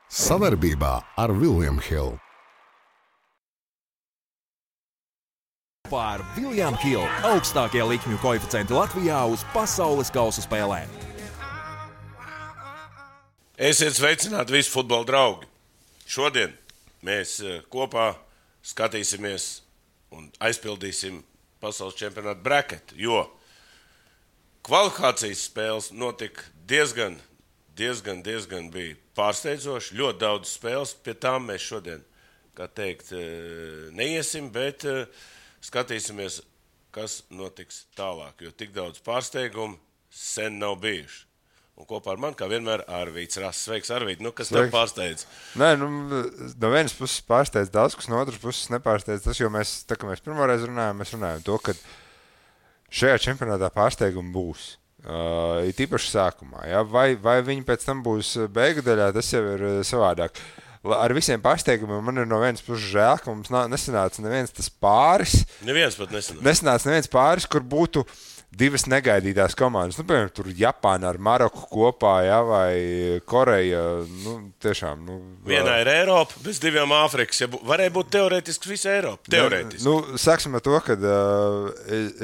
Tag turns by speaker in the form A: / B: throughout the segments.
A: Savarbībā ar William Hill.
B: Par William Hill augstākie likmju koeficienti Latvijā uz pasaules kausa spēlēm.
C: Esiet sveicināti visi futbola draugi. Šodien mēs kopā skatīsimies un aizpildīsim pasaules čempionātu braketu, jo kvalifikācijas spēles notika diezgan bija pārsteidzoši. Ļoti daudz spēles, pie tām mēs šodien, kā teikt, neiesim, bet skatīsimies, kas notiks tālāk, jo tik daudz pārsteigumu sen nav bijuši. Un kopā ar mani, kā vienmēr, Arvīds Rass. Sveiks, Arvīd. Kas tev pārsteidz?
D: Nē, no vienas puses pārsteidz daudz, kas no otras puses nepārsteidz tas, jo mēs, tā kā mēs pirmoreiz runājam, mēs runājam to, ka šajā čempionātā pārsteigumi būs. It īpaši sākumā. Ja? Vai viņi pēc tam būs beigu daļā, tas jau ir savādāk. Ar visiem pārsteigumiem man ir no vienas puses žēl, ka mums nesanāca neviens tas pāris.
C: Neviens pat nesanāca.
D: Nesanāca neviens pāris, kur būtu divas negaidītās komandas. Piemēram, tur Japāna ar Maroku kopā, ja, vai Koreja. Tiešām.
C: Vienā ir Eiropa, bez diviem Āfrikas. Ja varēja būt teorētiski visa Eiropa. Teorētiski.
D: Sāksim ar to, ka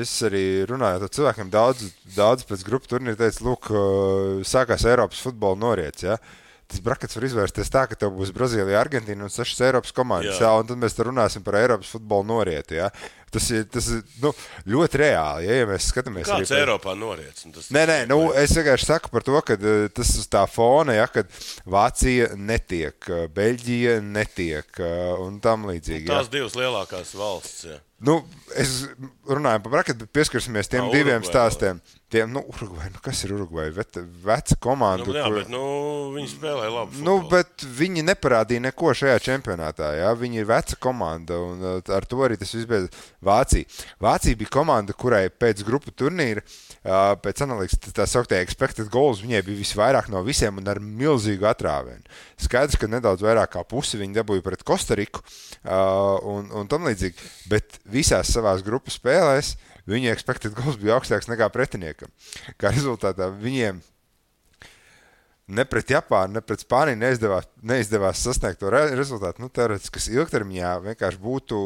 D: es arī runāju ar cilvēkiem daudz pēc grupu turnīra teicu, lūk, sākās Eiropas futbola noriets, ja. Tas brakets var izvērsties tā, ka tev būs Brazīlija, Argentīna un 6 Eiropas komandas, jā, un tad mēs te runāsim par Eiropas futbolu norieti, jā. Tas ir ļoti reāli, ja mēs skatāmies.
C: Kāds Eiropā noriets?
D: Es vienkārši saku par to, ka tas uz tā fona, ja, kad Vācija netiek, Beļģija netiek un tam līdzīgi.
C: Tās divas lielākās valsts, jā.
D: Es runāju par braketu, bet pieskarsimies tiem diviem stāstiem. Urugvai, kas ir Urugvai? Veca komanda.
C: Viņi spēlē labu futbolu.
D: Bet viņi neparādīja neko šajā čempionātā. Ja? Viņi ir veca komanda, un ar to arī tas viss beidz. Vācija bija komanda, kurai pēc grupu turnīra, pēc analīzes, tā sauktie expected goals, viņai bija visvairāk no visiem un ar milzīgu atrāvienu. Skaidrs, ka nedaudz vairāk kā pusi viņi dabūja pret Kostariku un tam līdzīgi, bet visās savās grupu spēlēs viņa expected goals bija augstāks nekā pretiniekam. Kā rezultātā viņiem ne pret Japānu, ne pret Spāniju neizdevās sasniegt to rezultātu. Teorētiski, kas ilgtermiņā vienkārši būtu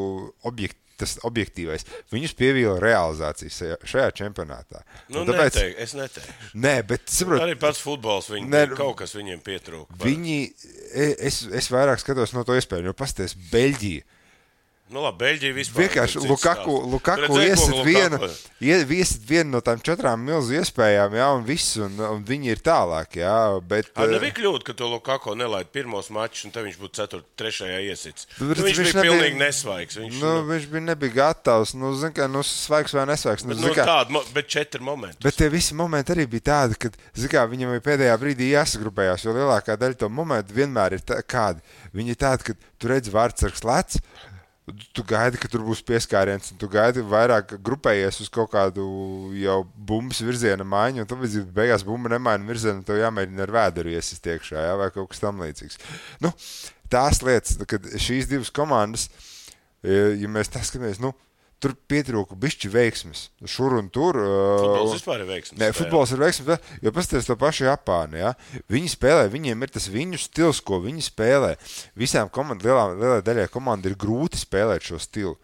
D: tas objektīvais. Viņus pievīla realizācijas šajā čempionātā.
C: Es neteikšu.
D: Nē, bet saprot.
C: Arī pats futbols, kaut kas viņiem pietrūka.
D: Es vairāk skatos no to iespēju, jo pasties Beļģija.
C: Beļģija vispār.
D: Vienkārši Lukaku iesit vienu no tām 4 milzu iespējām, jā, un viss, un viņi ir tālāk, jā, bet...
C: Nebija kļūda, ka to Lukaku nelaid pirmos mačus, un te viņš būtu 3. iesits. Viņš bija pilnīgi nesvaigs.
D: Viņš nebija gatavs, svaigs vai nesvaigs.
C: Bet 4 momenti.
D: Bet tie visi momenti arī bija tādi, kad, viņam bija pēdējā brīdī jāsagrupējās, jo lielākā daļa to momentu vienmēr ir kādi. Viņi ir tādi, ka tu redzi vārdsargs lec, tu gaidi, ka tur būs pieskāriens, un tu gaidi vairāk grupējies uz kaut kādu jau bumbas virziena maiņu, un tad beigās bumba nemaina virzienu, un tev jāmēģina ar vēderu iesist iekšā, jā, vai kaut kas tam līdzīgs. Tās lietas, kad šīs divas komandas, ja mēs tā skatāmies, tur pietrūka bišķi veiksmes, šur un tur.
C: Futbols vispār ir veiksmes.
D: Nē, futbols ir veiksmes, jo pasties to pašu Japānu, ja? Viņi spēlē, viņiem ir tas viņu stils, ko viņi spēlē. Visām lielai daļai komanda ir grūti spēlēt šo stilu.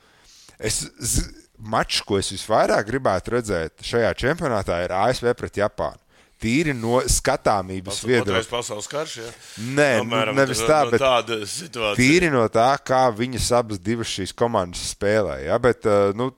D: Mačs, ko es visvairāk gribētu redzēt šajā čempionātā, ir ASV pret Japānu. Tīri no skatāmības viedokļa.
C: Otrais pasaules karš, ja?
D: Nē, nevis tā, bet
C: tāda situācija.
D: Tīri no tā, kā viņas abas divas šīs komandas spēlē, ja? Bet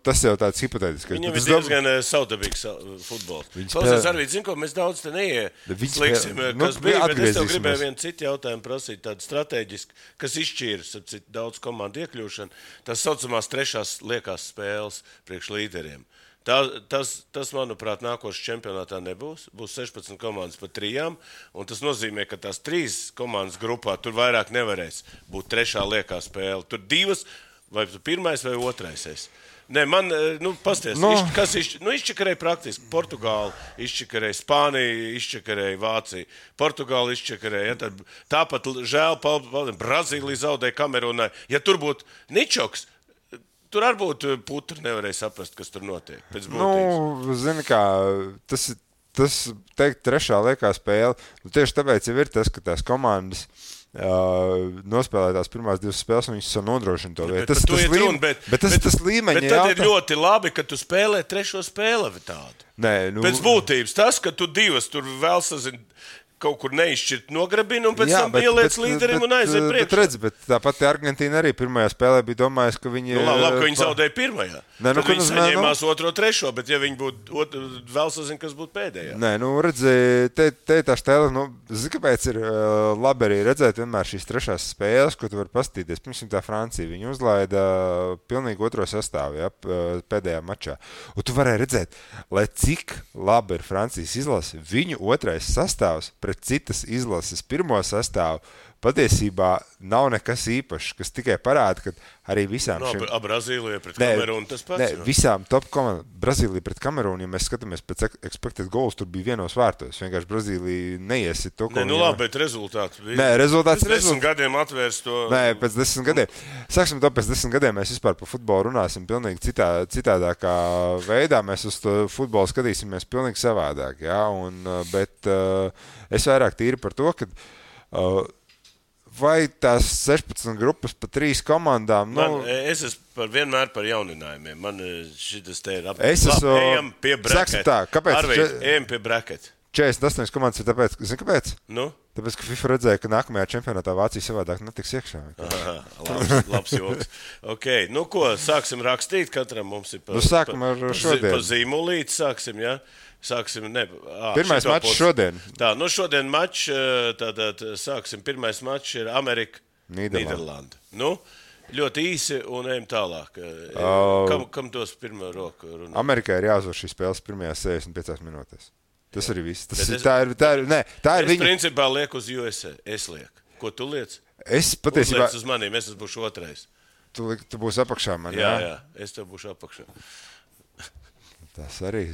D: tas jau tāds hipotētisks.
C: Viņam ir diezgan savdabīgs futbols. Klausies, Arvīd, zinu, ko mēs daudz te neieslīgsim, kas bija, bet es tev gribēju vienu citu jautājumu prasīt, tādu strateģisku, kas izšķīras daudz komandu iekļūšanu. Tas saucamās 3. liekās spēles priekš līderiem. Tas, manuprāt, nākošais čempionātā nebūs. Būs 16 komandas pa 3, un tas nozīmē, ka tās 3 komandas grupā tur vairāk nevarēs būt 3. liekā spēle. Tur 2, vai 1. vai 2. Nē, pasties, kas izčakarēja praktiski. Portugāli izčakarēja, Spānija izčakarēja, Vācija. Portugāli izčakarēja. Ja, tāpat žēl, Brazīlija zaudēja Kamerunai. Ja tur būtu Ničoks, tur arī būtu putri, nevarēja saprast, kas tur notiek.
D: Zini kā, tas teikt 3. liekā spēle, tieši tāpēc jau ir tas, ka tās komandas nospēlē tās pirmās 2 spēles, un viņš nodrošina to vietu. Tas līmeņa
C: bet tad ir ļoti labi, ka tu spēlē 3. spēli tādu.
D: Nē,
C: pēc būtības tas, ka tu 2 tur vēl sazini, kaut kur neizšķirt nograbina un pēc tam ieliec līderim un aiziet priekšā.
D: Bet tāpat Argentīna arī pirmajā spēlē bija domājusi, ka viņi...
C: Labi, ka viņi zaudēja pirmajā. Tad viņi saņēmās 2, 3, bet ja viņi būtu vēl sazina, kas būtu pēdējā.
D: Nē, redzi, te tā stēle, zini, kāpēc ir labi arī redzēt vienmēr šīs 3. spēles, ko tu vari paskatīties. Pirmsim tā Francija, viņi uzlaida pilnīgi 2. sastāvu, pēdējā mačā. Un tu varēji redzēt, lai cik labi ir Francijas izlase, viņu 2. sastāvs pret citas izlases 1. sastāvu patiesībā nav nekas īpašs, kas tikai parāda, ka arī visām
C: Brazīlija pret Kamerūnu tas pats.
D: Visām top komandām. Brazīlija pret Kamerūnu, ja mēs skatāmies pēc expected goals, tur bija 1 vārtos. Vienkārši Brazīlija neiesit to, ko
C: labi, bet rezultāts bija.
D: Rezultāts
C: pēc 10 gadiem atvērs to.
D: Pēc 10 gadiem. Sāksim to, pēc 10 gadiem mēs vispār par futbolu runāsim pilnīgi citādākā veidā. Mēs uz to futbolu skatīsimies pilnīgi savādāk, bet es vairāk tīri par to, ka vai tās 16 grupas pa 3 komandām?
C: Es esmu vienmēr par jauninājumiem. Man šitas te ir
D: ejam
C: pie breketa.
D: Kāpēc?
C: Ejam pie breketa.
D: 48 komandas ir tāpēc, zini kāpēc?
C: Nu?
D: Tāpēc, ka FIFA redzēja, ka nākamajā čempionātā Vācija savādāk netiks iekšā.
C: Labs joks. Okay. Ko, sāksim rakstīt? Katram mums ir
D: sākam ar šodien.
C: Pa zīmulīti sāksim,
D: pirmais mačs šodien.
C: Tā, šodien mačs, tātad sāksim. Pirmais mačs ir Amerika, Nīderlanda. Ļoti īsi un ejam tālāk. Kam tos pirmo roku runā?
D: Amerikai ir jāuzvar šīs spēles pirmajās 65 minūtēs. Tas arī viss. Tā ir
C: viņa. Principā lieku uz USA. Es lieku. Ko tu liec?
D: Es patiesībā...
C: Uzliec uz maniem, es būšu 2.
D: Tu būsi apakšā man,
C: jā? Es tev būšu apakšā.
D: Tas arī,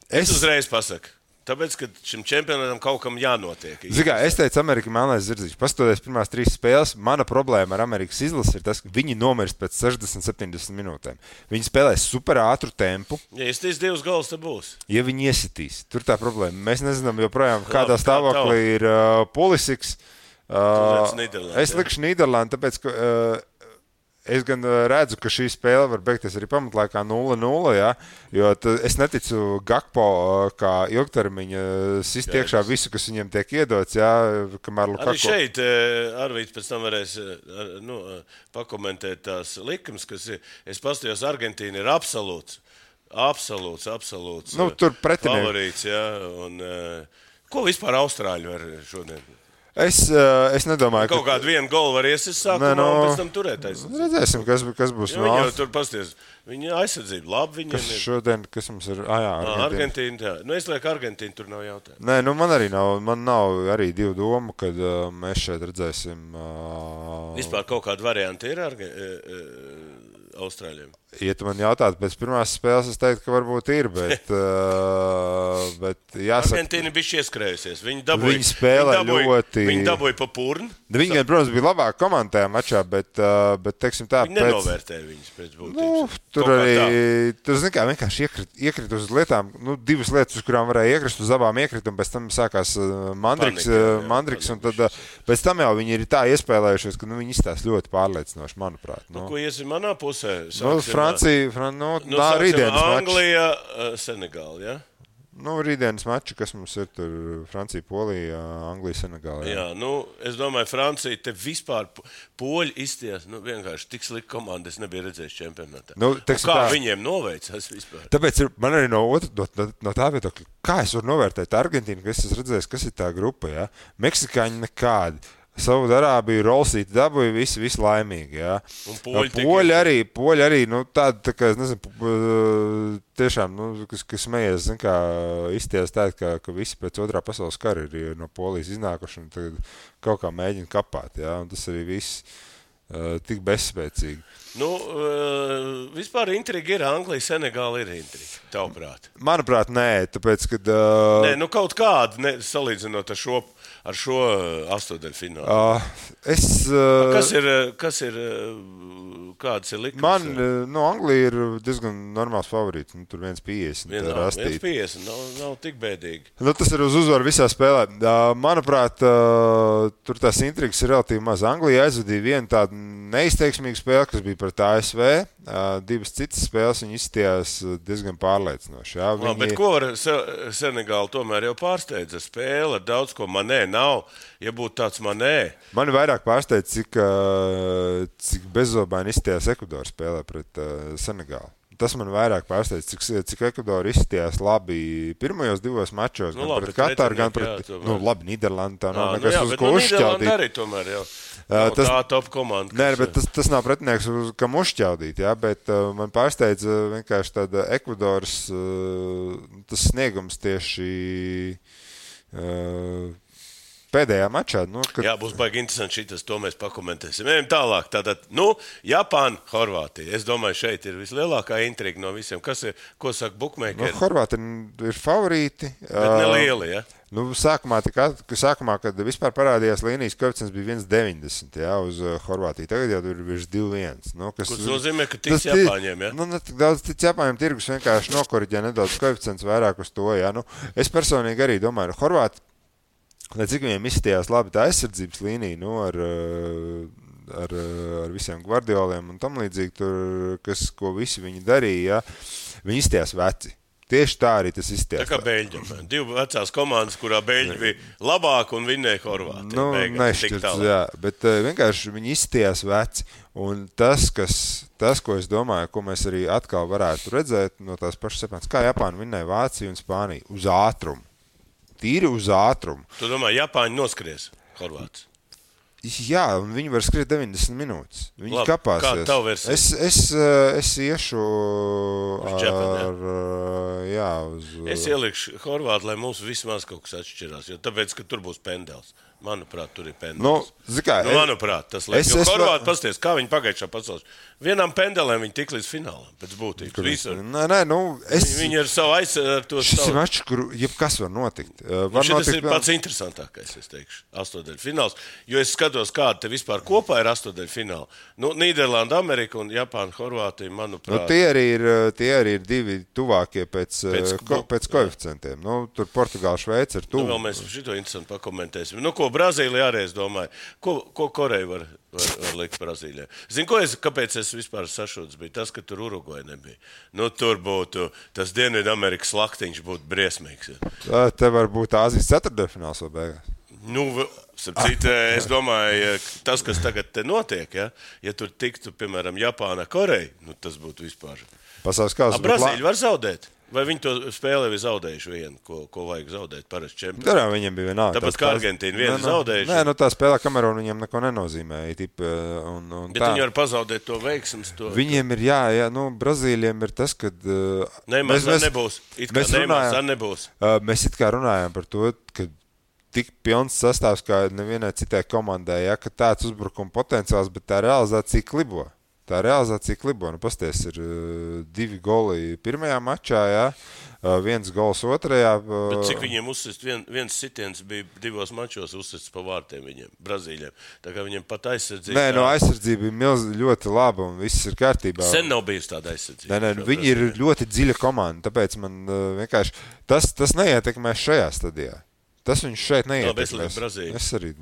C: Es uzreiz pasaku. Tāpēc, ka šim čempionātam kaut kam jānotiek.
D: Es teicu, Amerika melnais zirdziņš. Pastoties pirmās 3 spēles, mana problēma ar Amerikas izlasi ir tas, ka viņi nomirst pēc 60-70 minūtēm. Viņi spēlēs super ātru tempu.
C: Ja iesitīs 2 gols, tad būs.
D: Ja viņi iesitīs, tur tā problēma. Mēs nezinām joprojām, kādā stāvoklī ir Pulisiks. Es likšu Nīderlandu, tāpēc, ka... Es gan redzu, ka šī spēle var beigties arī pamatlaikā 0-0, jo es neticu Gakpo kā ilgtermiņa sist iekšā visu, kas viņiem tiek iedots, kamēr Lukaku...
C: Arī šeit Arvīts pēc tam varēs pakomentēt tās likums, kas ir, es pastījos, Argentīna ir absolūts favorīts, un ko vispār Austrāļi var šodien?
D: Es nedomāju,
C: ka... Kaut kādu vienu golu var iesist sākumā un pēc tam turēt aizsardzību.
D: Redzēsim, kas būs.
C: Viņi jau tur pasties. Viņa aizsardzība labi.
D: Šodien, kas mums ir?
C: Argentīna. Es lieku Argentīnu, tur nav jautājumu.
D: Nē, man arī nav. Man nav arī 2 domu, kad mēs šeit redzēsim.
C: Vispār kaut kādu variantu ir Austrāļiem?
D: Ja tu man jautātu pēc pirmās spēles, es teiktu, ka varbūt ir, bet jāsaka...
C: Argentīna bija ieskrējusies. Viņi
D: spēlē ļoti...
C: Viņi dabūja pa purnu.
D: Viņi, protams, bija labāk komandā tajā mačā, bet teiksim tā...
C: Viņi nenovērtēja viņus pēc būtības.
D: Tur arī, zini kā, vienkārši iekrīt uz lietām, 2 lietas, uz kurām varēja iekrist, uz abām iekrīt, un pēc tam sākās Mandriks, un tad pēc tam jau viņi ir tā iespēlējušies, ka viņi izstās ļoti pārliecinoši, manuprāt.
C: Ko iesim manā pusē?
D: Francija, rītdienas mačs.
C: Anglija, Senegāla, ja?
D: Rītdienas mači, kas mums ir tur Francija, Polija, Anglija, Senegāla.
C: Jā, es domāju, Francija te vispār poļi izties, vienkārši tik slikta komanda, es nebiju redzējis čempionātā. Kā viņiem noveicās vispār?
D: Tāpēc man arī no tā viedokļa, kā es varu novērtēt Argentīnu, ka es esmu redzējis, kas ir tā grupa, ja? Meksikāņi nekādi. Saudārābija, Rolsīti dabūja visi laimīgi,
C: Un poļi
D: arī, tādi, tā kā, es nezinu, tiešām, kas smējies, zin kā, izties tā, ka visi pēc 2. pasaules kara ir no Polijas iznākuši un tagad kaut kā mēģina kapāt, un tas arī viss tik bezspēcīgi.
C: Vispār intriga ir Anglija, Senegāla ir intriga, tavuprāt?
D: Manuprāt, nē, tāpēc, kad...
C: Nē, kaut kāda, salīdzinot ar šo ar šo astotdaļfinālu? Kas ir kāds ir likums?
D: Man, Anglija ir diezgan normāls favorīts. Tur 1,50.
C: 1,50 nav tik bēdīgi.
D: Tas ir uz uzvaru visā spēlē. Manuprāt, tur tās intrigas ir relatīvi maz. Anglija aizvadīja vienu tādu neizteiksmīgu spēli, kas bija pret ASV. Divas citas spēles viņi izstījās diezgan pārliecinoši.
C: Bet ko var Senegāla tomēr jau pārsteidza spēle? Daudz ko Manē nav. Ja būtu tāds Manē.
D: Mani vairāk pārsteidz, cik bezobaini izstījās Ekvadora spēlē pret Senegālu. Tas man vairāk pārsteidz, cik Ekvadora izstījās labi pirmajos divos mačos, gan pret Kataru, gan pret labi Nīderlandi. Tā nav nekas uz ko uzšķaudīt.
C: Arī tomēr jau. Tā top komanda.
D: Nē, bet tas nav pretinieks, kam uzšķaudīt, jā, bet man pārsteidz vienkārši tāda Ekvadoras tas sniegums tieši pēdējā mačā.
C: Jā, būs baigi interesanti šitas, to mēs pakomentēsim. Ejam tālāk. Tātad, Japāna, Horvātija. Es domāju, šeit ir vislielākā intriga no visiem. Ko saka bukmeikeri?
D: Horvāti ir favorīti.
C: Bet nelieli, ja?
D: Sākumā, kad vispār parādījās līnijas koeficients bija 1,90 uz Horvātiju. Tagad jau tur ir virs 2,1.
C: Kas nozīmē, ka tiks Japāņiem, ja?
D: Ne tik daudz tic Japāņiem, tirgus vienkārši nokoriģē nedaudz koeficients vairāk uz to, ja? Es personīgi arī domāju, Horvāti, lai cik viņiem izstījās labi tā aizsardzības līnija, ar visiem Guardioliem un tam līdzīgi, tur, ko visi viņi darīja, viņi izstījās veci. Tieši tā arī tas izstījās.
C: Tā kā Beļģiem. Divi vecās komandas, kurā Beļģi bija labāk un vinnēja Horvāti.
D: Nešķirts, jā, bet vienkārši viņi izstījās veci. Un tas, ko es domāju, ko mēs arī atkal varētu redzēt no tās pašas sepāns, kā Japāna vinnēja Vāciju un Spāniju uz ātrumu. Tīri uz ātrumu.
C: Tu domā, Japāņi noskries Horvāts?
D: Jā, un viņi var skriet 90 minūtes. Viņi kapāsies.
C: Kāda tavu versija?
D: Es iešu
C: Es ielikšu Horvātu, lai mums vismaz kaut kas atšķirās, jo tāpēc, ka tur būs pendels. Manuprāt, tur ir pendels. Manuprāt, tas liekas. Jo Horvāti pasties, kā viņi pagājušā pasaules. Vienam pendelēm viņi tik līdz finālam, pēc būtības. Viņi ir savu aizsardzību.
D: Šis ir mačs, kur jebkas var notikt.
C: Šis ir pats interesantākais, es teikšu, astotdaļu fināls. Jo es skatos, kāda te vispār kopā ir astotdaļu fināla. Nīderlanda, Amerika un Japāna, Horvātija, manuprāt.
D: Tie arī ir divi tuvākie pēc koeficientiem. Tur Portugāla, Šveice ir tuvu.
C: Vēl mēs šito interesanti pakomentēsim. Ko Brazīlija arī, es domāju. Ko Koreja var likt Brazīlijā? Zinu, kāpēc es vispār sašūts bija? Tas, ka tur Urugvaja nebija. Tur būtu, tas Dienvidamerikas laktiņš būtu briesmīgs.
D: Ja. Te var būt Āzijas ceturtdaļfināls vēl beigās.
C: Es domāju, tas, kas tagad te notiek, ja tur tiktu, piemēram, Japāna, Koreja, tas būtu vispār.
D: Pasaules kausa.
C: Brazīļi var zaudēt? Vai viņi to spēlē ir zaudējuši vienu, ko vajag zaudēt parasti čempionā?
D: Viņiem bija vienalga.
C: Tāpat kā Argentīna vienu zaudējuši.
D: Tā spēlē Kamerūna viņiem neko nenozīmē.
C: Bet viņi var pazaudēt to veiksmes.
D: Viņiem ir, Brazīļiem ir tas, kad...
C: nebūs.
D: Mēs it kā runājām par to, ka tik pilns sastāvs kā nevienai citai komandai, ka tāds uzbrukuma potenciāls, bet tā realizācija klibo. Pasties ir 2 goli pirmajā mačā, 1 gols otrajā.
C: Bet cik viņiem uzsist? Viens sitiens bija 2 mačos uzsists pa vārtiem viņiem, Brazīļiem. Tā kā viņiem pat aizsardzība...
D: aizsardzība ir ļoti laba un viss ir kārtībā.
C: Sen nav bijusi tāda aizsardzība.
D: Viņi ir ļoti dziļa komanda, tāpēc man vienkārši... Tas neietekmēs šajā stadijā. Tas viņš šeit neietekmēs. Es arī...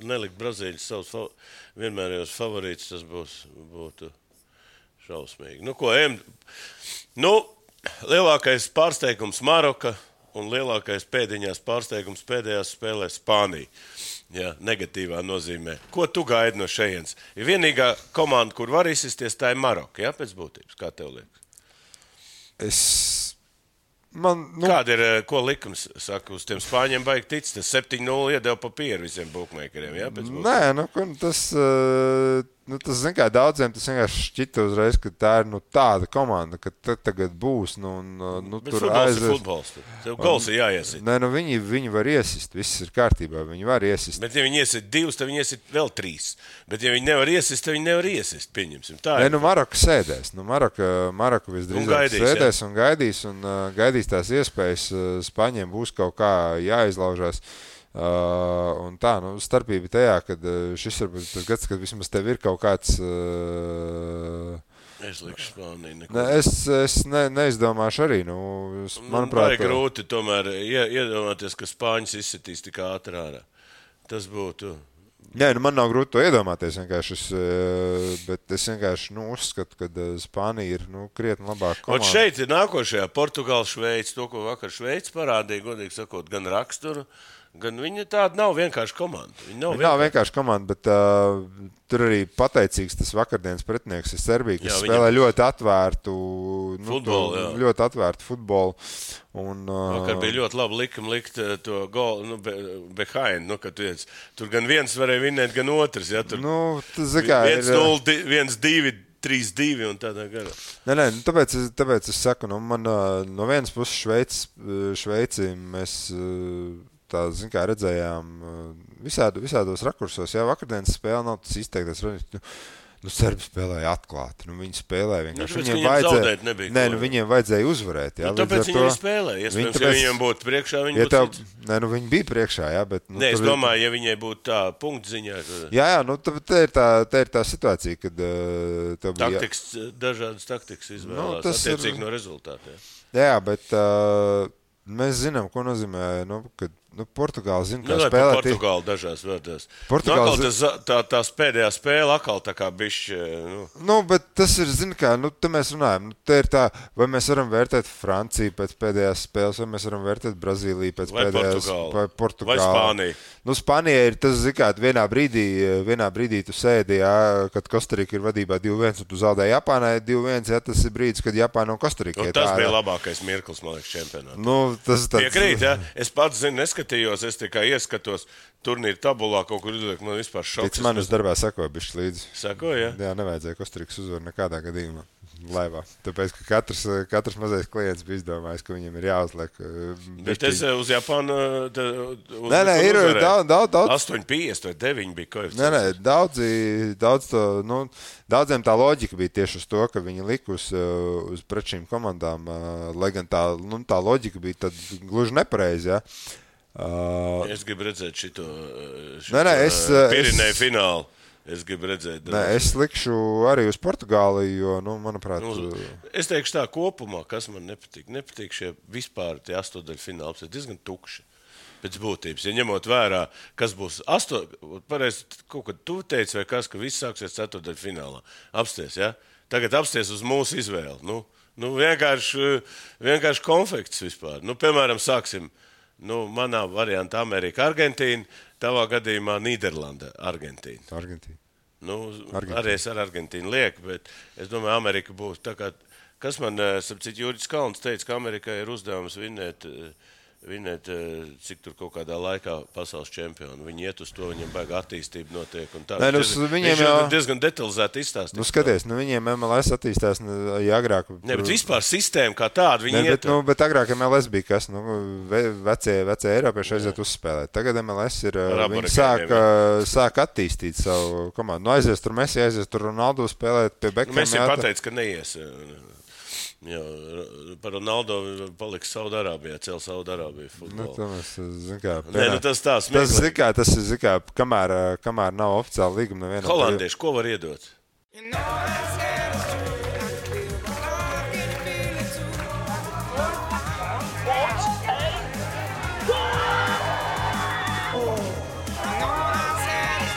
C: Nelikt Brazīļus savus vienmērējos favorītus, tas būtu šausmīgi. Ejam. Lielākais pārsteigums Maroka un lielākais pēdiņās pārsteigums pēdējās spēlēs Spānija. Jā, negatīvā nozīmē. Ko tu gaidi no šejienes? Ir vienīgā komanda, kur var izsisties, tā ir Maroka, jā, pēc būtības. Kā tev liekas? Kāda ir, ko likums saka, uz tiem Spāņiem baigi tic? Tas 7-0 iedeva papīru visiem bukmeikeriem, jā?
D: Tas, zin kā, daudziem tas vienkārši šķita uzreiz, ka tā ir tāda komanda, ka tagad būs.
C: Bet tur futbols ir futbols. Tev gols ir jāiesit.
D: Viņi var iesist, viss ir kārtībā, viņi var iesist.
C: Bet ja viņi iesit 2, tad viņi iesit vēl 3. Bet ja viņi nevar iesist, tad viņi nevar iesist, pieņemsim. Tā ir.
D: Maroka sēdēs. Maroka visdrīzāk sēdēs un gaidīs tās iespējas. Spāņiem būs kaut kā jāizlaužās. Un tā, starpība tajā, kad šis varbūt tas gads, kad vismaz tev ir kaut kāds...
C: Es likšu Spāniju.
D: Es neizdomāšu arī. Manuprāt,
C: vajag grūti tomēr iedomāties, ka Spāņus izsitīs tik ātri ārā. Tas būtu...
D: Jā, man nav grūti to iedomāties, bet es vienkārši uzskatu, ka Spānija ir krietni labāka komanda.
C: Un šeit ir nākošajā Portugāla Šveice, to, ko vakar Šveice parādīja, godīgi sakot, gan raksturu, gan viņa tāda nav vienkārši komanda. Viņa nav
D: vienkārši komanda, bet tur arī pateicīgs tas vakardienas pretinieks ir Serbija, kas spēlē ļoti atvērtu futbolu. Ļoti atvērtu futbolu.
C: Vakar bija ļoti labi likt to golu, behind, kad tur gan viens varēja vinēt, gan otrs. Ja, tur 1-0, 1-2, 3-2 un tādā garā.
D: Nē, tāpēc es saku, man no vienas puses Šveici mēs... Tā, redzējām visādos rakursos. Jā, vakardienas spēle nav tas izteiktais. Serbi spēlēja atklāti. Viņi spēlēja vienkārši. Viņiem vajadzēja uzvarēt. Jā,
C: tāpēc viņi spēlēja. Iespējams, ja viņiem būtu priekšā, viņi būtu cits.
D: Viņi bija priekšā, jā, bet...
C: es domāju, ja viņai būtu tā punktziņā.
D: Jā, tā ir tā situācija, kad...
C: Dažādas taktikas izvēlās, attiecīgi no rezultātiem.
D: Jā, bet mēs zinām, ko nozīmē, kad... Portugāla zina, kā spēlēt.
C: Portugāla dažās vārdās. Tās pēdējā spēle atkal tā kā bišķi...
D: bet tas ir, te mēs runājam. Te ir tā, vai mēs varam vērtēt Franciju pēc pēdējās spēles, vai mēs varam vērtēt Brazīliju pēc pēdējās... Vai Portugāla.
C: Vai Spānija.
D: Spānija ir tas, vienā brīdī tu sēdi, jā, kad Kostarika ir vadībā 2-1, un tu zaudēji Japānai 2-1, jā, tas ir brīdis, kad Japāna un Kostarika
C: tas bija labākais mirklis, man liekas, čempionātā. Piekrīt, jā. Es pats zinu, es tikai ieskatos turnīru tabulā, kaut kur izliek, man vispār šoks.
D: Pēc manis darbā sakoja bišķi līdzi.
C: Sakoja, jā?
D: Jā, nevajadzēja Kostarikas uzvaru nekādā gadījumā laivā. Tāpēc, ka katrs mazais klients bija izdomājis, ka viņam ir jāuzliek.
C: Bet es uz Japānu...
D: Nē, ir daudz.
C: 8,50 vai 9 bija koeficients.
D: Nē, daudziem tā loģika bija tieši uz to, ka viņi lika uz pret šīm komandām, lai gan tā loģika bija tad gluži nepareizi, jā.
C: Es gribu redzēt šito Pirinēju finālu. Es gribu redzēt.
D: Es likšu arī uz Portugāli, jo, manuprāt...
C: Es teikšu tā kopumā, kas man nepatīk. Nepatīk šie vispār tie astodaļfināli. Tas ir diezgan tukši pēc būtības. Ja ņemot vērā, kas būs pareizi, kaut kad tu teici vai kas, ka viss sāksies ceturdaļfinālā. Apsties, ja? Tagad apsties uz mūsu izvēli. Vienkārši konfekts vispār. Piemēram, sāksim... manā variantā Amerika, Argentīna, tavā gadījumā Nīderlanda, Argentīna. Arī es ar Argentīnu lieku, bet es domāju, Amerika būs tā kā, kas man, sapcīt, Jūris Kalns teica, ka Amerikai ir uzdevums vinēt, cik tur kaut kādā laikā pasaules čempionu. Viņi iet uz to, viņiem baigā attīstība notiek. Un tā. Viņš diezgan detalizēti izstāstīt.
D: Skaties, viņiem MLS attīstās agrāk.
C: Ne, bet vispār sistēma kā tāda, viņi iet.
D: Bet agrāk MLS bija kas, vecie Eiropieši aiziet uzspēlēt. Tagad MLS ir, viņi sāk attīstīt savu komandu. Aizies tur Messi, aizies tur Ronaldo spēlēt pie Beckham.
C: Messi pateica, ka neies. Jā, par Ronaldo paliks Saudārābijā, cēl Saudārābiju futbolu.
D: Tas ir, kamēr nav oficiāli līguma nevienam.
C: Holandieši, ko var iedot?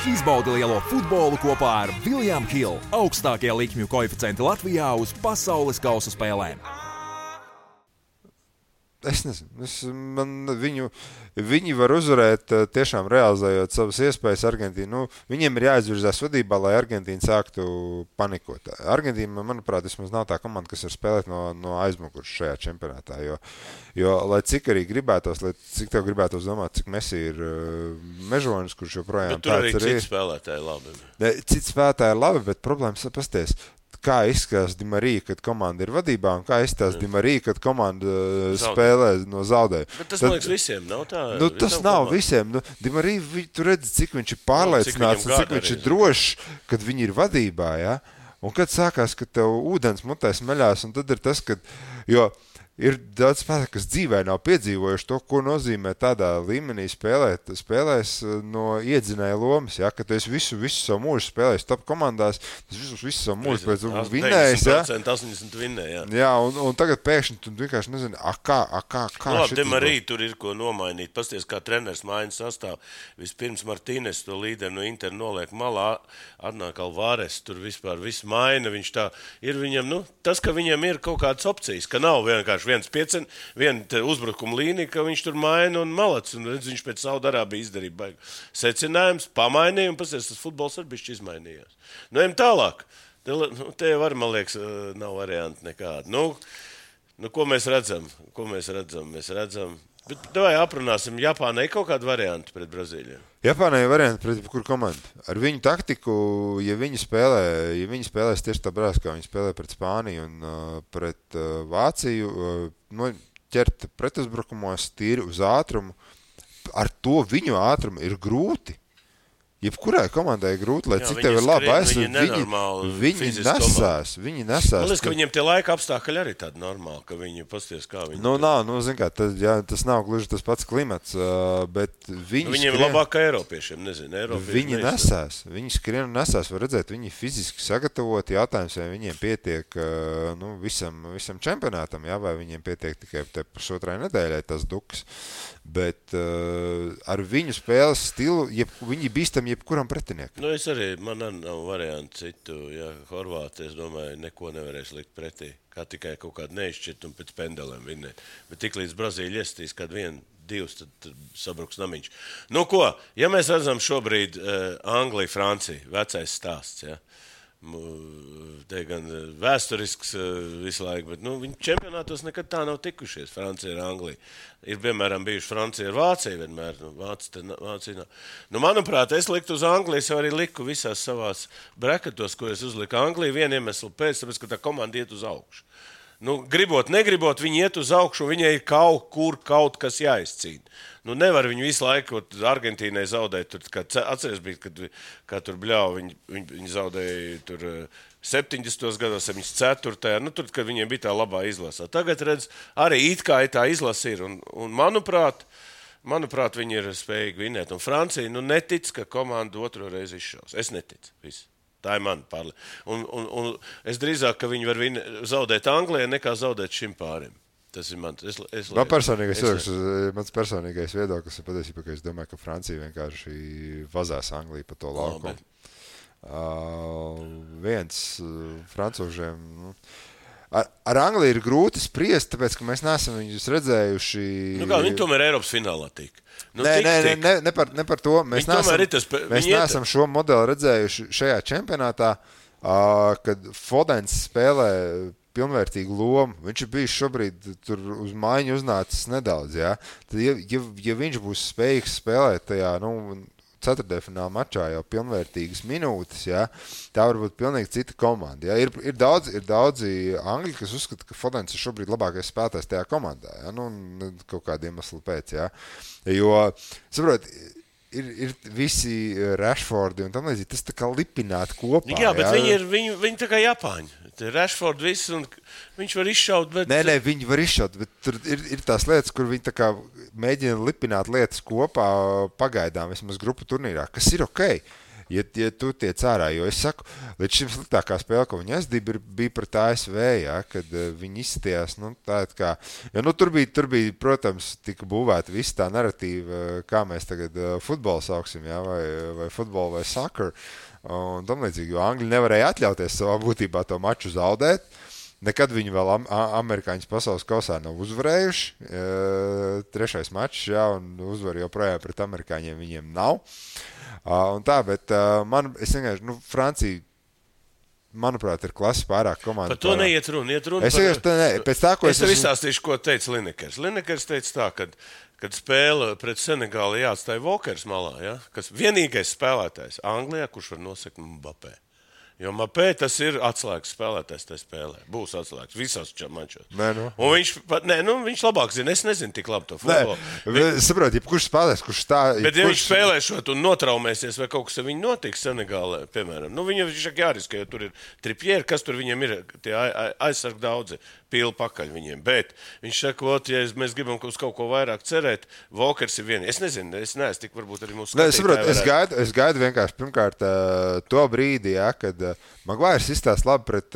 B: Izbaudi lielo futbolu kopā ar William Hill. Augstākie likmju koeficienti Latvijā uz pasaules kausa spēlēm.
D: Es nezinu, viņi var uzvarēt tiešām realizējot savas iespējas Argentīnu. Viņiem ir jāizvirzās vadībā, lai Argentīna sāktu panikot. Argentīna, manuprāt, vismaz nav tā komanda, kas var spēlēt no aizmugures šajā čempionātā, jo lai cik arī gribētos, cik tev gribētos domāt, cik Messi ir mežonis, kurš joprojām
C: tāds arī. Bet tur arī citi spēlētāji labi.
D: Citi spēlētāji labi, bet problēmas pasties. Kā izskatās Di Marija, kad komanda ir vadībā, un kā izskatās Di Marija, kad komanda spēlē no zaudējuma.
C: Bet tas, man liekas, visiem nav tā.
D: Tas nav visiem. Di Marija, tu redzi, cik viņš ir pārliecināts, cik viņš ir drošs, kad viņi ir vadībā, ja? Un kad sākās, ka tev ūdens mutē smeļās, un tad ir tas, kad... Jo Ir daudz spēlētāju, kas dzīvē nav piedzīvojuši to, ko nozīmē tādā līmenī spēlēs no iedzinēja lomas, ja, ka tu esi visu savu mūžu spēlējis top komandās, tas visu savu mūžu pēc vinnējis, ja.
C: 80% vinnē, jā.
D: Jā, un tagad pēkšņi tu vienkārši nezini, kā šitas
C: Demarī tur ir ko nomainīt. Pasties, kā treneris maina sastāv. Vispirms Martīnes to līderi no Inter noliek malā, atnāk Alvarez, tur vispār viss maina, viņš tā ir viņam, tas, ka viņam ir kaut kādas opcijas, ka nav vienkārši viena uzbrukuma līnija, ka viņš tur maina un malac. Un redz, viņš pēc Saudarābija izdarīja baigu secinājums, pamainīja un pasties, tas futbols arī bišķi izmainījās. Ejam tālāk. Te var, man liekas, nav varianti nekādi. Ko mēs redzam? Mēs redzam. Bet davai aprunāsim, Japānai ir kaut kāda varianta pret Brazīliju?
D: Japānai ir varianti pret kur komandu. Ar viņu taktiku, ja viņi spēlēs tieši tā brāz, kā viņi spēlē pret Spāniju un pret Vāciju, ķert pretuzbrukumos tīri uz ātrumu, ar to viņu ātrumu ir grūti. Jebkurai komandai ir grūti, lai cik tev ir labi aizsardzība. Viņi nesās. Man
C: liekas, ka viņiem tie laika apstākļi arī tādi normāli, ka viņi pasties, kā viņi...
D: zin kā, tas nav gluži tas pats klimats, bet viņi
C: viņiem ir labāk kā Eiropiešiem, nezinu.
D: Viņi nesās. Viņi skrien un nesās, var redzēt, viņi fiziski sagatavoti, jautājums, vai viņiem pietiek visam čempionātam, jā, vai viņiem pietiek tikai te pusotrai nedēļai tas duks. Bet ar viņu spēles stilu, viņi bīstam jebkuram pretiniekam.
C: Es arī, man nav variantu citu, ja Horvāti, es domāju, neko nevarēs likt pretī, kā tikai kaut kādu neizšķirt un pēc pendelēm vinnēt. Bet tik līdz Brazīļa iestīs, kad 1-2, tad sabruks namiņš. Ja mēs redzam šobrīd Angliju, Franciju, vecais stāsts, ja? Te gan vēsturisks visu laiku, bet viņi čempionātos nekad tā nav tikušies, Francija ar Angliju. Ir, piemēram, bijuši Francija ar Vāciju vienmēr, Vācija nav. Manuprāt, es liktu uz Angliju, es arī liku visās savās brekatos, ko es uzliku Angliju, vienu iemeslu pēc, tāpēc, ka tā komanda iet uz augšu. Gribot, negribot, viņi iet uz augšu, viņai ir kaut kas jāizcīna. Nevar viņu visu laiku Argentīnai zaudēt. Atceries bija, kad tur bļauj, viņi zaudēja tur 70. gados, 74. Tur, kad viņiem bija tā labā izlasā. Tagad, redz, arī it kā tā izlasa ir. Un manuprāt, viņi ir spējīgi vinnēt. Un Francija, netic, ka komanda otro reizi izšaus. Es neticu. Viss. Tā ir mana pārliecība. Un es drīzāk, ka viņi var zaudēt Anglijai, nekā zaudēt šim pārim. Tas ir mans.
D: Mans personīgais viedoklis ir patiesībā, ka es domāju, ka Francija vienkārši vazās Angliju pa to laukumu. Viens francūžiem... Ar Angliju ir grūti spriest, tāpēc, ka mēs neesam viņus redzējuši...
C: Viņi tomēr Eiropas finālā tika.
D: Ne par to. Mēs neesam šo modeli redzējuši šajā čempionātā, kad Fodens spēlē pilnvērtīgu lomu. Viņš ir bijis šobrīd tur uz maiņu uznācis nedaudz. Ja? Tad, ja viņš būs spējīgs spēlēt tajā... ceturtdienfināla mačā jau pilnvērtīgas minūtes, ja, tā var būt pilnīgi cita komanda. Ja. Ir daudzi angļi, kas uzskata, ka Fodens ir šobrīd labākais spēlētājs tajā komandā. Ja. Kaut kādu iemeslu pēc. Ja. Jo, saprot, ir visi Rashfordi un tam līdzīgi, tas tā kā lipināti kopā.
C: Jā, bet viņi tā kā Japāņi. Rashford viss, un viņš var izšaut, bet...
D: Nē, viņi var izšaut, bet tur ir tās lietas, kur viņi tā kā mēģina lipināt lietas kopā pagaidām, vismaz grupu turnīrā, kas ir okei. Ja tu tiec ārā, jo es saku, līdz šim sliktākā spēle, ko viņi bija pret ASV, ja, kad viņi izstījās, kā, jo tur bija, protams, tika būvēta visa tā narratīva, kā mēs tagad futbolu sauksim, ja, vai futbolu vai soccer, un tam līdzīgi, jo Angļi nevarēja atļauties savā būtībā to maču zaudēt. Nekad viņi vēl amerikāņus pasaules kausā nav uzvarējuši. Trešais mačs, jā, un uzvar joprojām pret amerikāņiem viņiem nav. Un tā, bet es vienkārši, Francija, manuprāt, ir klasi pārāk komanda.
C: Par to neiet runa.
D: Es
C: tev izstāstīšu, ko teica Linekers. Linekers teica tā, kad spēle pret Senegāli jāatstāja Walkers malā, ja? Kas vienīgais spēlētājs Anglijā, kurš var nosekt Mbappé. Jo Mapē tas ir atslēgas spēlētājs tajā spēlē. Būs atslēgas visos mačos. Un viņš labāk zina. Es nezinu tik labi to futbolu.
D: Saprot, kurš spēlēs, kurš tā...
C: Bet ja viņš spēlēšot un notraumēsies vai kaut kas ar viņu notiks Senegālē, piemēram, viņam viņš jāriskē, jo tur ir tripieri, kas tur viņiem ir, tie aizsargi daudzi, pīli pakaļ viņiem. Bet viņš saka, ja mēs gribam uz kaut ko vairāk cerēt, Walkers ir viens. Es nezinu, es neesmu tik varbūt arī mūsu skatītāji.
D: Es gaidu vienkārši pirmkārt to brīdi, kad Maguires izstāsta labi pret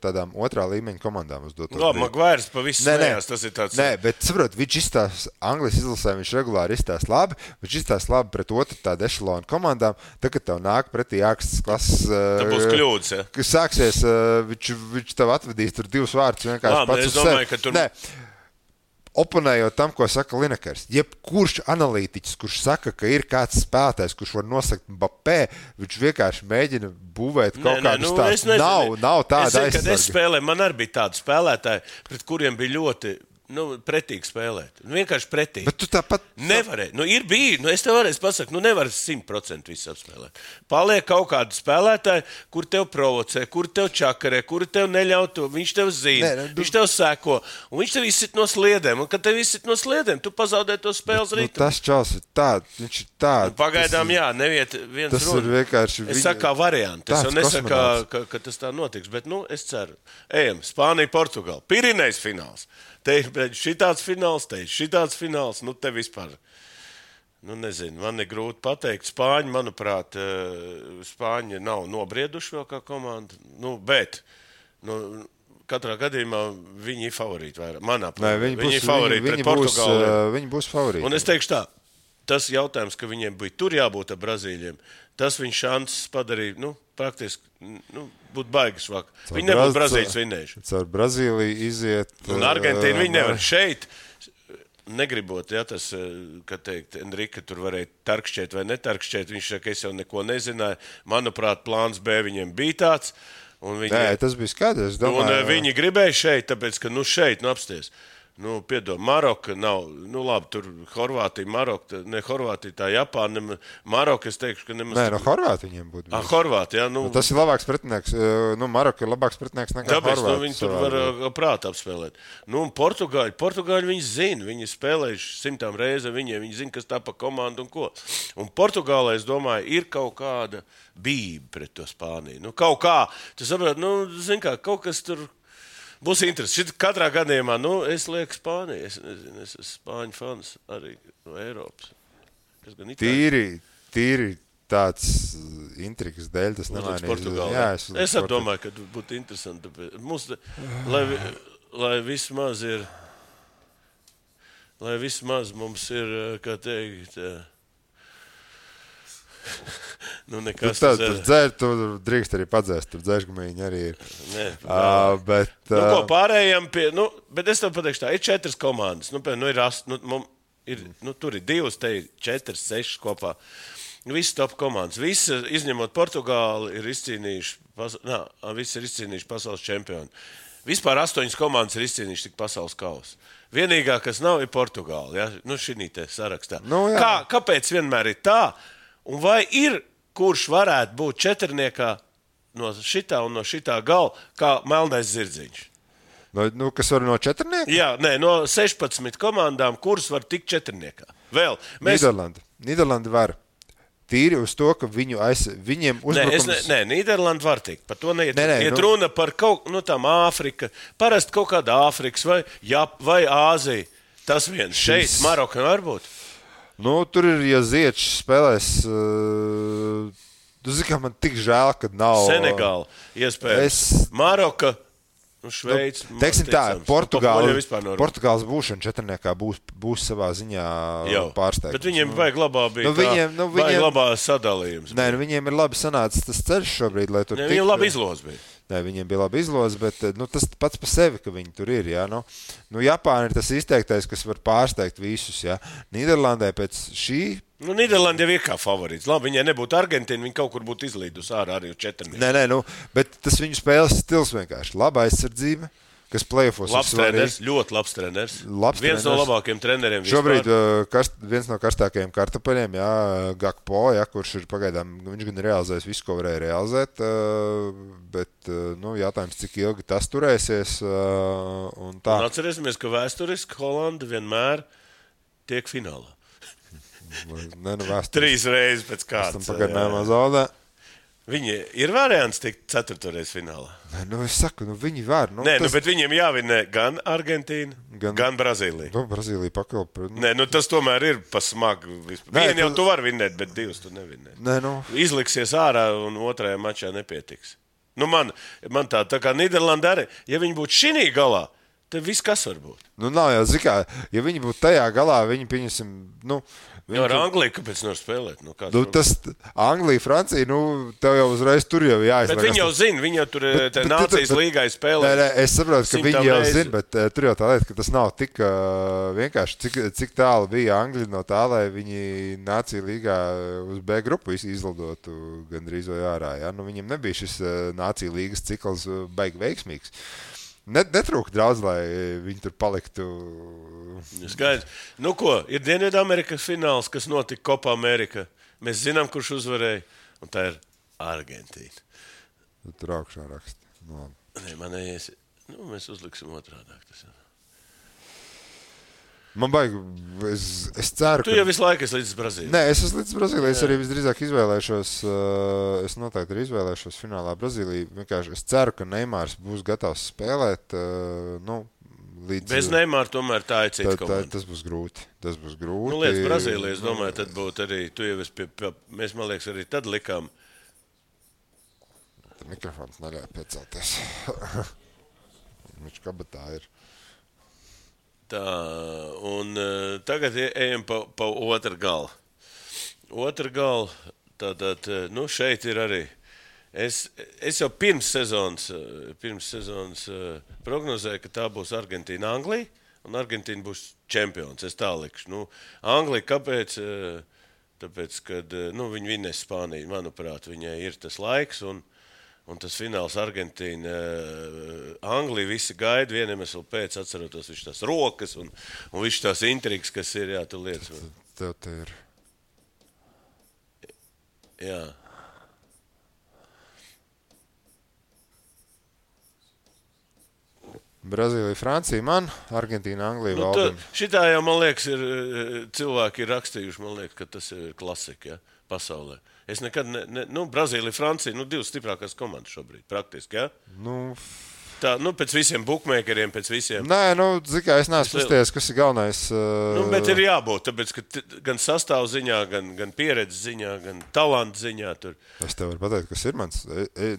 D: tādām otrā līmeņa komandām uz doto brīdi.
C: Maguires pavisam smējās, tas ir tāds...
D: Nē, bet saprot, viņš izstāsta Anglijas izlasē, viņš regulāri izstāsta labi, viņš izstāsta labi pret otru tādu ešalonu komandām, tad, kad tev nāk pretī ākstas klases...
C: Tā būs kļūdas, ja?
D: Kas sāksies, viņš tev atvedīs tur 2 vārdus vienkārši pats uz sevi. Nē, oponējot tam, ko saka Linekers, jebkurš analītiķis, kurš saka, ka ir kāds spēlētājs, kurš var nosakt Mbappé, viņš vienkārši mēģina būvēt kaut kādus tādus. Nav tāda aizsarga.
C: Kad es spēlēju, man arī bija tādi spēlētāji, pret kuriem bija ļoti pretīgi spēlēt. Vienkārši pretīgi.
D: Bet tu tāpat...
C: Nevarēji. Ir bija. Es tev varēju pasakt, nevar 100% visu apspēlēt. Paliek kaut kādi spēlētāji, kur tev provocē, kur tev čakarē, kur tev neļauj to. Viņš tev zina, viņš tev sēko. Un viņš tev izsit no sliedēm. Un kad tev izsit no sliedēm, tu pazaudē to spēles ritmu.
D: Tas čals ir tāds. Viņš ir tāds.
C: Pagaidām, neviet viens
D: tas runa. Tas ir vienkārši...
C: Es saku kā varianti. Es jau nesaku, ka tas tā notiks. Bet, es ceru. Ejam. Spānija, Portugāla. Pirinejs fināls. Te ir šitāds fināls, šitāds fināls. Te vispār, nezinu, man ir grūti pateikt. Spāņi, manuprāt, Spāņi nav nobrieduši vēl kā komanda. Bet, katrā gadījumā viņi ir favorīti vairāk. Manā plānā. Viņi ir favorīti pret Portugāli.
D: Viņi būs favorīti.
C: Un es teikšu tā, tas jautājums, ka viņiem bija tur jābūt ar Brazīļiem, tas viņa šanses padarīja, praktiski, būtu baigas vaka. Viņi nebūtu Brazīļus vinnējuši.
D: Caur Brazīliju iziet...
C: Un Argentīnu viņi nevar. Šeit, negribot, tas, ka teikt, Enrika tur varēja tarkšķēt vai netarkšķēt, viņš saka, es jau neko nezināju. Manuprāt, plāns B viņiem bija tāds.
D: Nē, tas bija skaidrs.
C: Un viņi gribēja šeit, tāpēc, ka šeit, apsties. Piedod, Maroka nav, labi, tur Horvātija, Maroka, ne Horvātija, tā Japāna, Maroka, es teikšu, ka nemaz...
D: Nē, Horvātija viņiem būtu.
C: Horvātija,
D: tas ir labāks pretinieks, Maroka ir labāks pretinieks nekā Horvātija.
C: Tāpēc, viņi tur var prātu apspēlēt. Un Portugāļi viņi zina, viņi spēlējuši 100 reizi viņiem, viņi zina, kas tā pa komandu un ko. Un Portugālē, es domāju, ir kaut kāda bība pret to Spāniju. Kaut kā, tu saprāt, zini kā, kaut kas tur... Būs interesanti. Katrā gadījumā, es lieku Spāniju. Es nezinu, es esmu Spāņu fans arī no Eiropas.
D: Tīri tāds intrigas dēļ tas nemainīs.
C: Es domāju, ka būtu interesanti. Mums, lai vismaz mums ir, kā teikt...
D: Tu drīkst arī padzēst, tur dzēšgamīņi arī ir. Bet
C: pārējām pie, bet es tev pateikšu tā, ir 4 komandas, tur ir 2, te ir 4, 6 kopā. Visi top komandas, visi izņemot Portugāli ir izcīnījuši pasaules čempioni. Vispār 8 komandas ir izcīnījuši tik pasaules kausu. Vienīgā, kas nav, ir Portugāli, šī te sarakstā. Kāpēc vienmēr ir tā? Un vai ir, kurš varētu būt četrniekā no šitā un no šitā gala, kā melnais zirdziņš?
D: Kas var no četrnieka?
C: Jā, no 16 komandām, kuras var tikt četrniekā. Vēl.
D: Nīderlanda var. Tīri uz to, ka viņiem uzbrukums...
C: Nē, Nīderlanda var tikt. Par to neiet. Iet runa par kaut, tām Āfrika, parasti kaut kāda Āfrikas vai Āzija. Tas viens. Šeit Maroka var būt.
D: Tur ir, ja Ziečs spēlēs, tu zini, kā man tik žēl, kad nav...
C: Senegāla, iespējams. Maroka, Šveica.
D: Teiksim tā, Portugāles būšana četrniekā būs savā ziņā pārsteigums.
C: Bet viņiem vajag labā bija vajag labā sadalījums.
D: Nē, viņiem ir labi sanācis tas ceļš šobrīd, lai tur tiktu.
C: Viņiem labi izlos bija.
D: Nē, viņiem bija laba izloze, bet tas pats par sevi, ka viņi tur ir. Ja? Japāna ir tas izteiktais, kas var pārsteigt visus. Ja? Nīderlandē pēc šī...
C: Nīderlanda jau ir kā favorīts. Labi, viņai nebūtu Argentīna, viņi kaut kur būtu izlīdus ārā arī uz četrnieki.
D: Nē, bet tas viņu spēles stils vienkārši. Laba aizsardzība, kas play-offos
C: labs treneris, ļoti labs treneris. Viens no labākajiem treneriem vispār.
D: Šobrīd viens no karstākajiem kartupeļiem, Gakpo, kurš ir pagaidām, viņš gan realizējis visu, ko varēja realizēt, bet jautājums, cik ilgi tas turēsies. Un
C: atcerēsimies, ka vēsturiski Holanda vienmēr tiek finālā. 3 reizes pēc kārtas.
D: Pagaidām zaudē.
C: Viņi ir variants tikt 4. reiz finālā.
D: Es saku, viņi var.
C: Bet viņiem jāvinē gan Argentīna, gan Brazīlija.
D: Brazīlija pakalpa.
C: Tas tomēr ir pasmagu. Vienu jau tu vari vinnēt, bet 2 tu nevinnē. Izliksies ārā un otrajā mačā nepietiks. Man tā kā Nīderlanda arī, ja viņi būtu šinī galā, tad viss kas var būt.
D: Nav jau zikā, ja viņi būtu tajā galā, viņi pieņemsim,
C: ar Angliju, kāpēc nevar spēlēt?
D: Tas Anglija, Francija, tev jau uzreiz tur jau jāizmēr.
C: Bet viņi jau zina, viņi jau tur nācijas līgai spēlē.
D: Es saprotu, ka viņi jau zina, bet tur jau tā lieta, ka tas nav tik vienkārši, cik tālu bija Angļi no tā, lai viņi nācija līgā uz B grupu izlidotu gandrīz vai ārā. Ja? Viņiem nebija šis nācija līgas cikls baigi veiksmīgs. Netrūka daudz, lai viņi tur paliktu.
C: Skaidrs. Ir Dienvidamerikas fināls, kas notika Copa Amerika. Mēs zinām, kurš uzvarēja, un tā ir Argentīna.
D: Tur augšā raksta.
C: Mēs uzliksim otrādāk. Tas ir.
D: Man baigi, es ceru,
C: Tu jau visu laiku esi līdz Brazīlijai.
D: Nē, es esmu līdz Brazīlijai. Es arī visdrīzāk izvēlēšos, es noteikti arī izvēlēšos finālā Brazīliju. Vienkārši es ceru, ka Neimārs būs gatavs spēlēt. Līdz,
C: bez Neimāra tomēr tā ir cits komanda.
D: Tas būs grūti.
C: Līdz Brazīlijai, es domāju, tad būtu arī, tu jau esi mēs, man liekas, arī tad likām.
D: Mikrofons neļauj piecelties. Viņš kabatā ir.
C: Tā, un tagad ejam pa otru galu. Otru galu, tātad, šeit ir arī. Es jau pirms sezonas prognozēju, ka tā būs Argentīna, Anglija, un Argentīna būs čempions. Es tā likšu. Anglija, kāpēc? Tāpēc, kad viņi vinnēs Spāniju, manuprāt, viņai ir tas laiks, un tas fināls Argentīna, Anglija visi gaida, vienam esmu pēc atcerotos viņš tās rokas un viņš tās intrigas, kas ir, tu lietas.
D: Tev te ir.
C: Jā.
D: Brazīlija, Francija, Argentīna, Anglija, Valdim.
C: Šitā jau, man liekas, cilvēki ir rakstījuši, man liekas, ka tas ir klasika, pasaulē. Es nekad, Brazīlija, Francija, 2 stiprākās komandas šobrīd, praktiski, ja? Tā, pēc visiem bookmakeriem, pēc visiem.
D: Nē, zikā, es neesmu uzties, kas ir galvenais.
C: Bet ir jābūt, tāpēc, ka gan sastāv ziņā, gan pieredzes ziņā, gan talantu ziņā tur.
D: Es tev varu pateikt, kas ir mans, es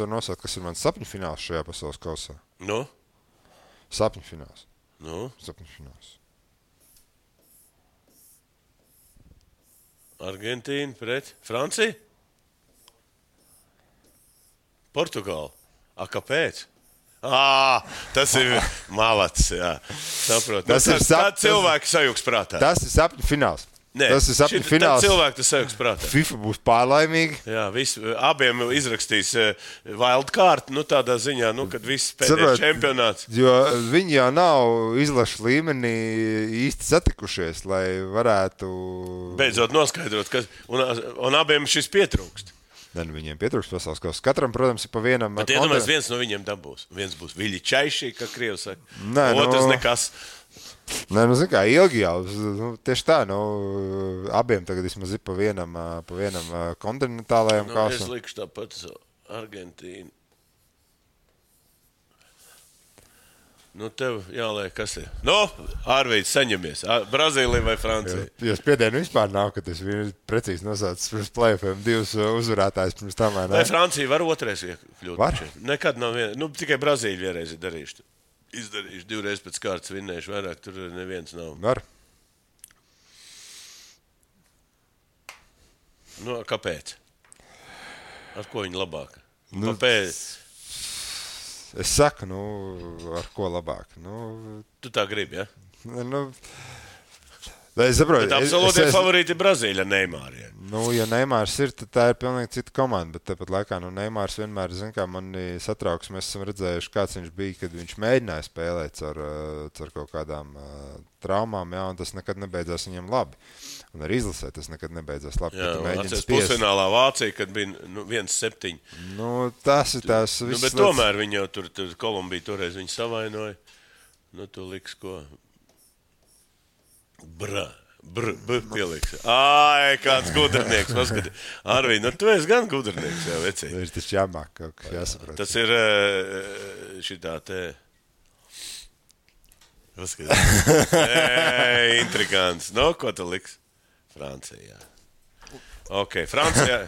D: varu nosaukt, kas ir mans sapņu fināls šajā pasaules kausā. Sapņu fināls. Sapņu fināls.
C: Argentīna pret Franciju? Portugāla. Kāpēc? Tas ir malats, jā. Saprot. Tā cilvēki sajūgs prātā.
D: Tas ir sapņu fināls. Nē, tas ir sapņu fināls.
C: Tā cilvēki tas sajūgs prātā.
D: FIFA būs pārlaimīgi.
C: Jā, abiem izrakstīs wildcard, tādā ziņā, kad viss pēdējais čempionāts.
D: Jo viņi jau nav izlašu līmenī īsti satikušies, lai varētu...
C: Beidzot noskaidrot, un abiem šis pietrūkst.
D: Viņiem pietrūkst pasaules kausā. Katram, protams, ir pa vienam...
C: Bet iedomājies, viens no viņiem dabūs. Viens būs Viļi Čaišī, kā Krievi saka. Otrs nekas.
D: Nē, zin kā, ilgi jau. Tieši tā, abiem tagad vismaz ir pa vienam kontinentālajam kausam.
C: Es likšu tāpat Argentīnu. Tev jāliek, kas ir. Ārvīds, saņemies. Brazīlija vai Francija?
D: Jo spiedienu vispār nav, ka tas precīzi nosaucis pirms play-offiem 2 uzvarētājs pirms tam.
C: Vai Francija var otrais iekļūt?
D: Var?
C: Nekad nav tikai Brazīļa vienreiz ir darījuši. Izdarījuši 2 reizes pēc kārtas vinnējuši, vairāk tur neviens nav.
D: Var.
C: Kāpēc? Ar ko viņi labāk? Kāpēc?
D: Es saku, ar ko labāk.
C: Tu tā gribi, ja?
D: Es saprotu,
C: bet absolūti favorīti ir Brazīļa Neimārija.
D: Nu, ja Neimārs ir, tad tā ir pilnīgi cita komanda, bet tāpat laikā, Neimārs vienmēr, mani satrauks, mēs esam redzējuši, kāds viņš bija, kad viņš mēģināja spēlēt ar kaut kādām traumām, jā, un tas nekad nebeidzās viņam labi. Un arī izlasē tas nekad nebeidzās labi.
C: Jā, atceries pusfinālā Vācija, kad bija 1-7.
D: Nu, tas ir tās viss.
C: Bet tomēr viņi jau tur Kolumbija toreiz viņu savainoja. Nu, tu liks ko? Pieliks. Ai, kāds gudrinieks. Arvī, tu esi gan gudrinieks, jā, vecī.
D: Tas taču jāmāk kaut kas jāsaprot.
C: Tas ir šitā te... Intrigants. Nu, ko tu liks? Francija. Ok, Francija.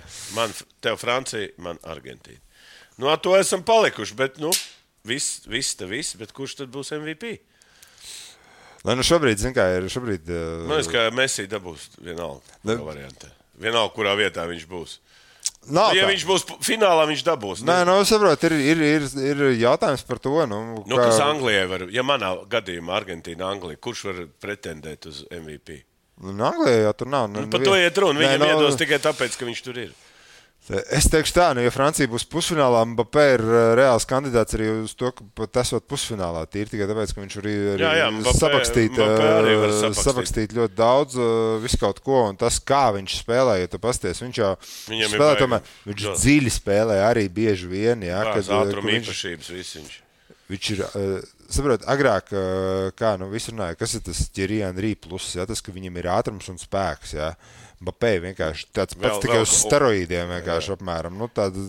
C: Tev Francija, man Argentīna. Nu, ar to esam palikuši, bet, viss, bet kurš tad būs MVP?
D: Lai šobrīd, šobrīd...
C: Man liekas, ka Messi dabūs vienalga variantē. Vienalga, kurā vietā viņš būs. Ja viņš būs finālā, viņš dabūs.
D: Nē, saprot, ir jautājums par to.
C: Kas Anglijai var, ja manā gadījumā Argentīna, Anglija, kurš var pretendēt uz MVP?
D: Anglijai jau tur nav.
C: Par to iet runa. Viņam iedos tikai tāpēc, ka viņš tur ir.
D: Es teikšu tā, ja Francija būs pusfinālā, Mbappé ir reāls kandidāts arī uz to, ka pat esot pusfinālā. Tīri tikai tāpēc, ka viņš arī sapakstīt ļoti daudz, visu kaut ko, un tas, kā viņš spēlē, ja tu pasties, viņš jau spēlē, tomēr, viņš dziļi spēlē arī bieži vien, jā.
C: Ātruma īpašības viss viņš.
D: Viņš ir, saprot, agrāk, kā visi runāja, kas ir tas Thierry Henry plus, jā, tas, ka viņam ir ātrums un spēks, jā. Mbappé vienkārši tāds pats tikai uz steroīdiem vienkārši apmēram. Tāda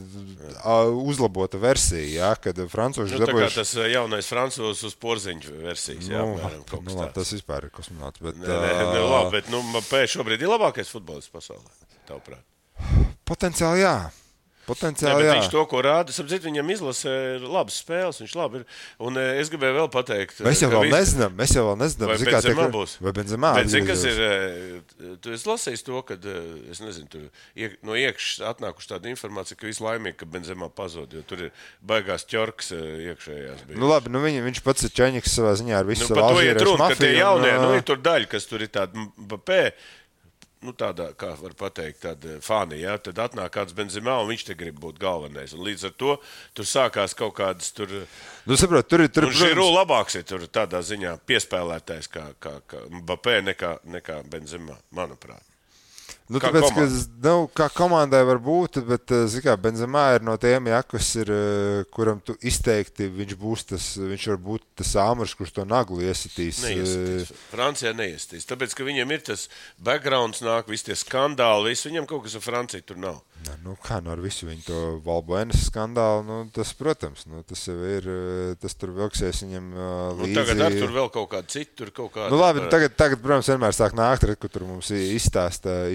D: uzlabota versija, jā, kad francūži dabūjuši...
C: Tā kā tas jaunais francūzs uz porziņu versijas, jā, apmēram kaut kas tāds.
D: Tas vispār ir kosmonauts, bet...
C: Labi, bet Mbappé šobrīd ir labākais futbolists pasaulē, tavuprāt?
D: Potenciāli, jā.
C: Viņš to, ko rāda, sapcīt, viņam izlasē labas spēles, viņš labi ir. Un es gribēju vēl pateikt...
D: Mēs jau vēl nezinām.
C: Vai Benzemā būs?
D: Vai Benzemā?
C: Bet zini, kas ir... Tu esi lasījis to, kad, es nezinu, tur no iekšas atnākuši tāda informācija, ka visu laimīgi, ka Benzemā pazod, jo tur ir baigās ķorks iekšējās.
D: Labi, viņš pats ir čaņiks savā ziņā ar visu
C: Alžīriešu mafiju. Ka tie jaunie, ir tur daļa, kas tur ir tāda Mbappé, tādā, kā var pateikt, tāda fani, jā, tad atnāk kāds Benzemā, un viņš te grib būt galvenais. Un līdz ar to tur sākās kaut kādas tur...
D: saprot, tur
C: un Žirū labāks ir tur tādā ziņā piespēlētājs kā Mbappé nekā Benzemā, manuprāt.
D: Kā komandai var būt, bet, zikā, Benzemā ir no tiem, jā, kas ir, kuram tu izteikti, viņš var būt tas āmurs, kurš to naglu iesitīs.
C: Neiesitīs. Francijā neiesitīs. Tāpēc, ka viņiem ir tas backgrounds nāk, visi tie skandāli, viņam kaut kas ar Franciju tur nav.
D: Ar visu viņu to Valbuenas skandālu, tas, protams, tas jau ir, tas tur vilksies viņam līdzi.
C: Tagad ar tur vēl kaut kādu citu, tur kaut kādu...
D: Labi, tagad, protams, vienmēr sāk nākt, kur tur mums izstāsta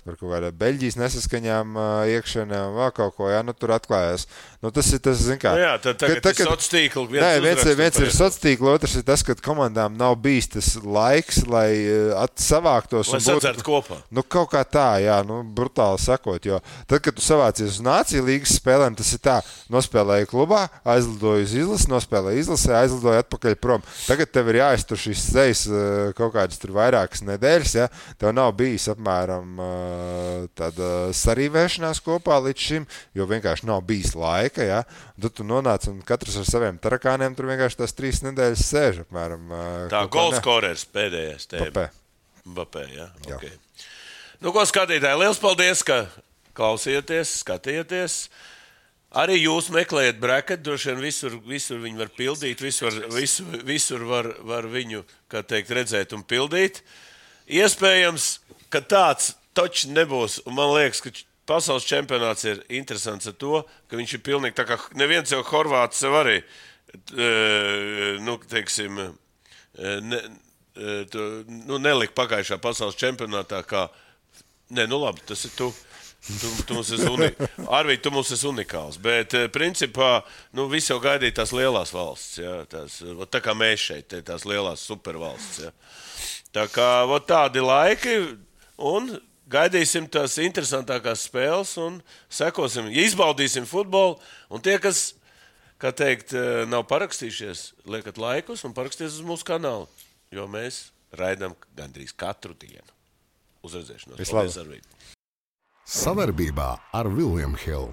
D: par kaut kādā Beļģijas nesaskaņām iekšana, vēl kaut ko, jā, tur atklājās. Tas ir tas, zin kā...
C: Jā, tagad ir sociātīkli.
D: Viens ir sociātīkli, otrs ir tas, ka komandām nav bijis tas laiks, lai savāktos.
C: Lai sadzert kopā.
D: Kaut kā tā, jā, brutāli sakot, jo tad, kad tu savācies uz Nāciju līgas spēlēm, tas ir tā, nospēlēji klubā, aizlidoji uz izlasi, nospēlēji izlasē, aizlidoji atpakaļ prom. Tagad tev ir jāiztur šīs sejas kaut kādas tur vairākas nedēļas, ja? Tev nav bijis apmēram tāda sarīvēšanās kopā līdz šim, jo vienkārši nav bijis laika, ja? Tad tu nonāc un katrs ar saviem tarakāniem tur vienkārši tās 3 nedēļas sēž apmēram.
C: Tā golskorers pēdējais tēma. Mbappé, jā. Okay. Ko skatītāji, liels paldies, ka klausieties, skatieties. Arī jūs meklējat bracket, droši vien visur viņi var pildīt, visur var viņu, kā teikt, redzēt un pildīt. Iespējams, ka tāds toči nebūs, un man liekas, ka pasaules čempionāts ir interesants ar to, ka viņš ir pilnīgi tā kā neviens jau Horvāts sev arī, teiksim, nelika pagājušā pasaules čempionātā kā, labi, tas ir tu. Tu mums Arvīd, tu mums esi unikāls, bet principā, visi jau gaidīja tās lielās valsts, jā, tā kā mēs šeit, tās lielās supervalsts, jā. Tā kā, tādi laiki, un gaidīsim tās interesantākās spēles, un sekosim, izbaudīsim futbolu, un tie, kas, kā teikt, nav parakstījušies, liekat laikus un paraksties uz mūsu kanālu, jo mēs raidām gandrīz katru dienu. Uz redzēšanos. Paldies, Arvīd.
A: Savarbībā ar William Hill.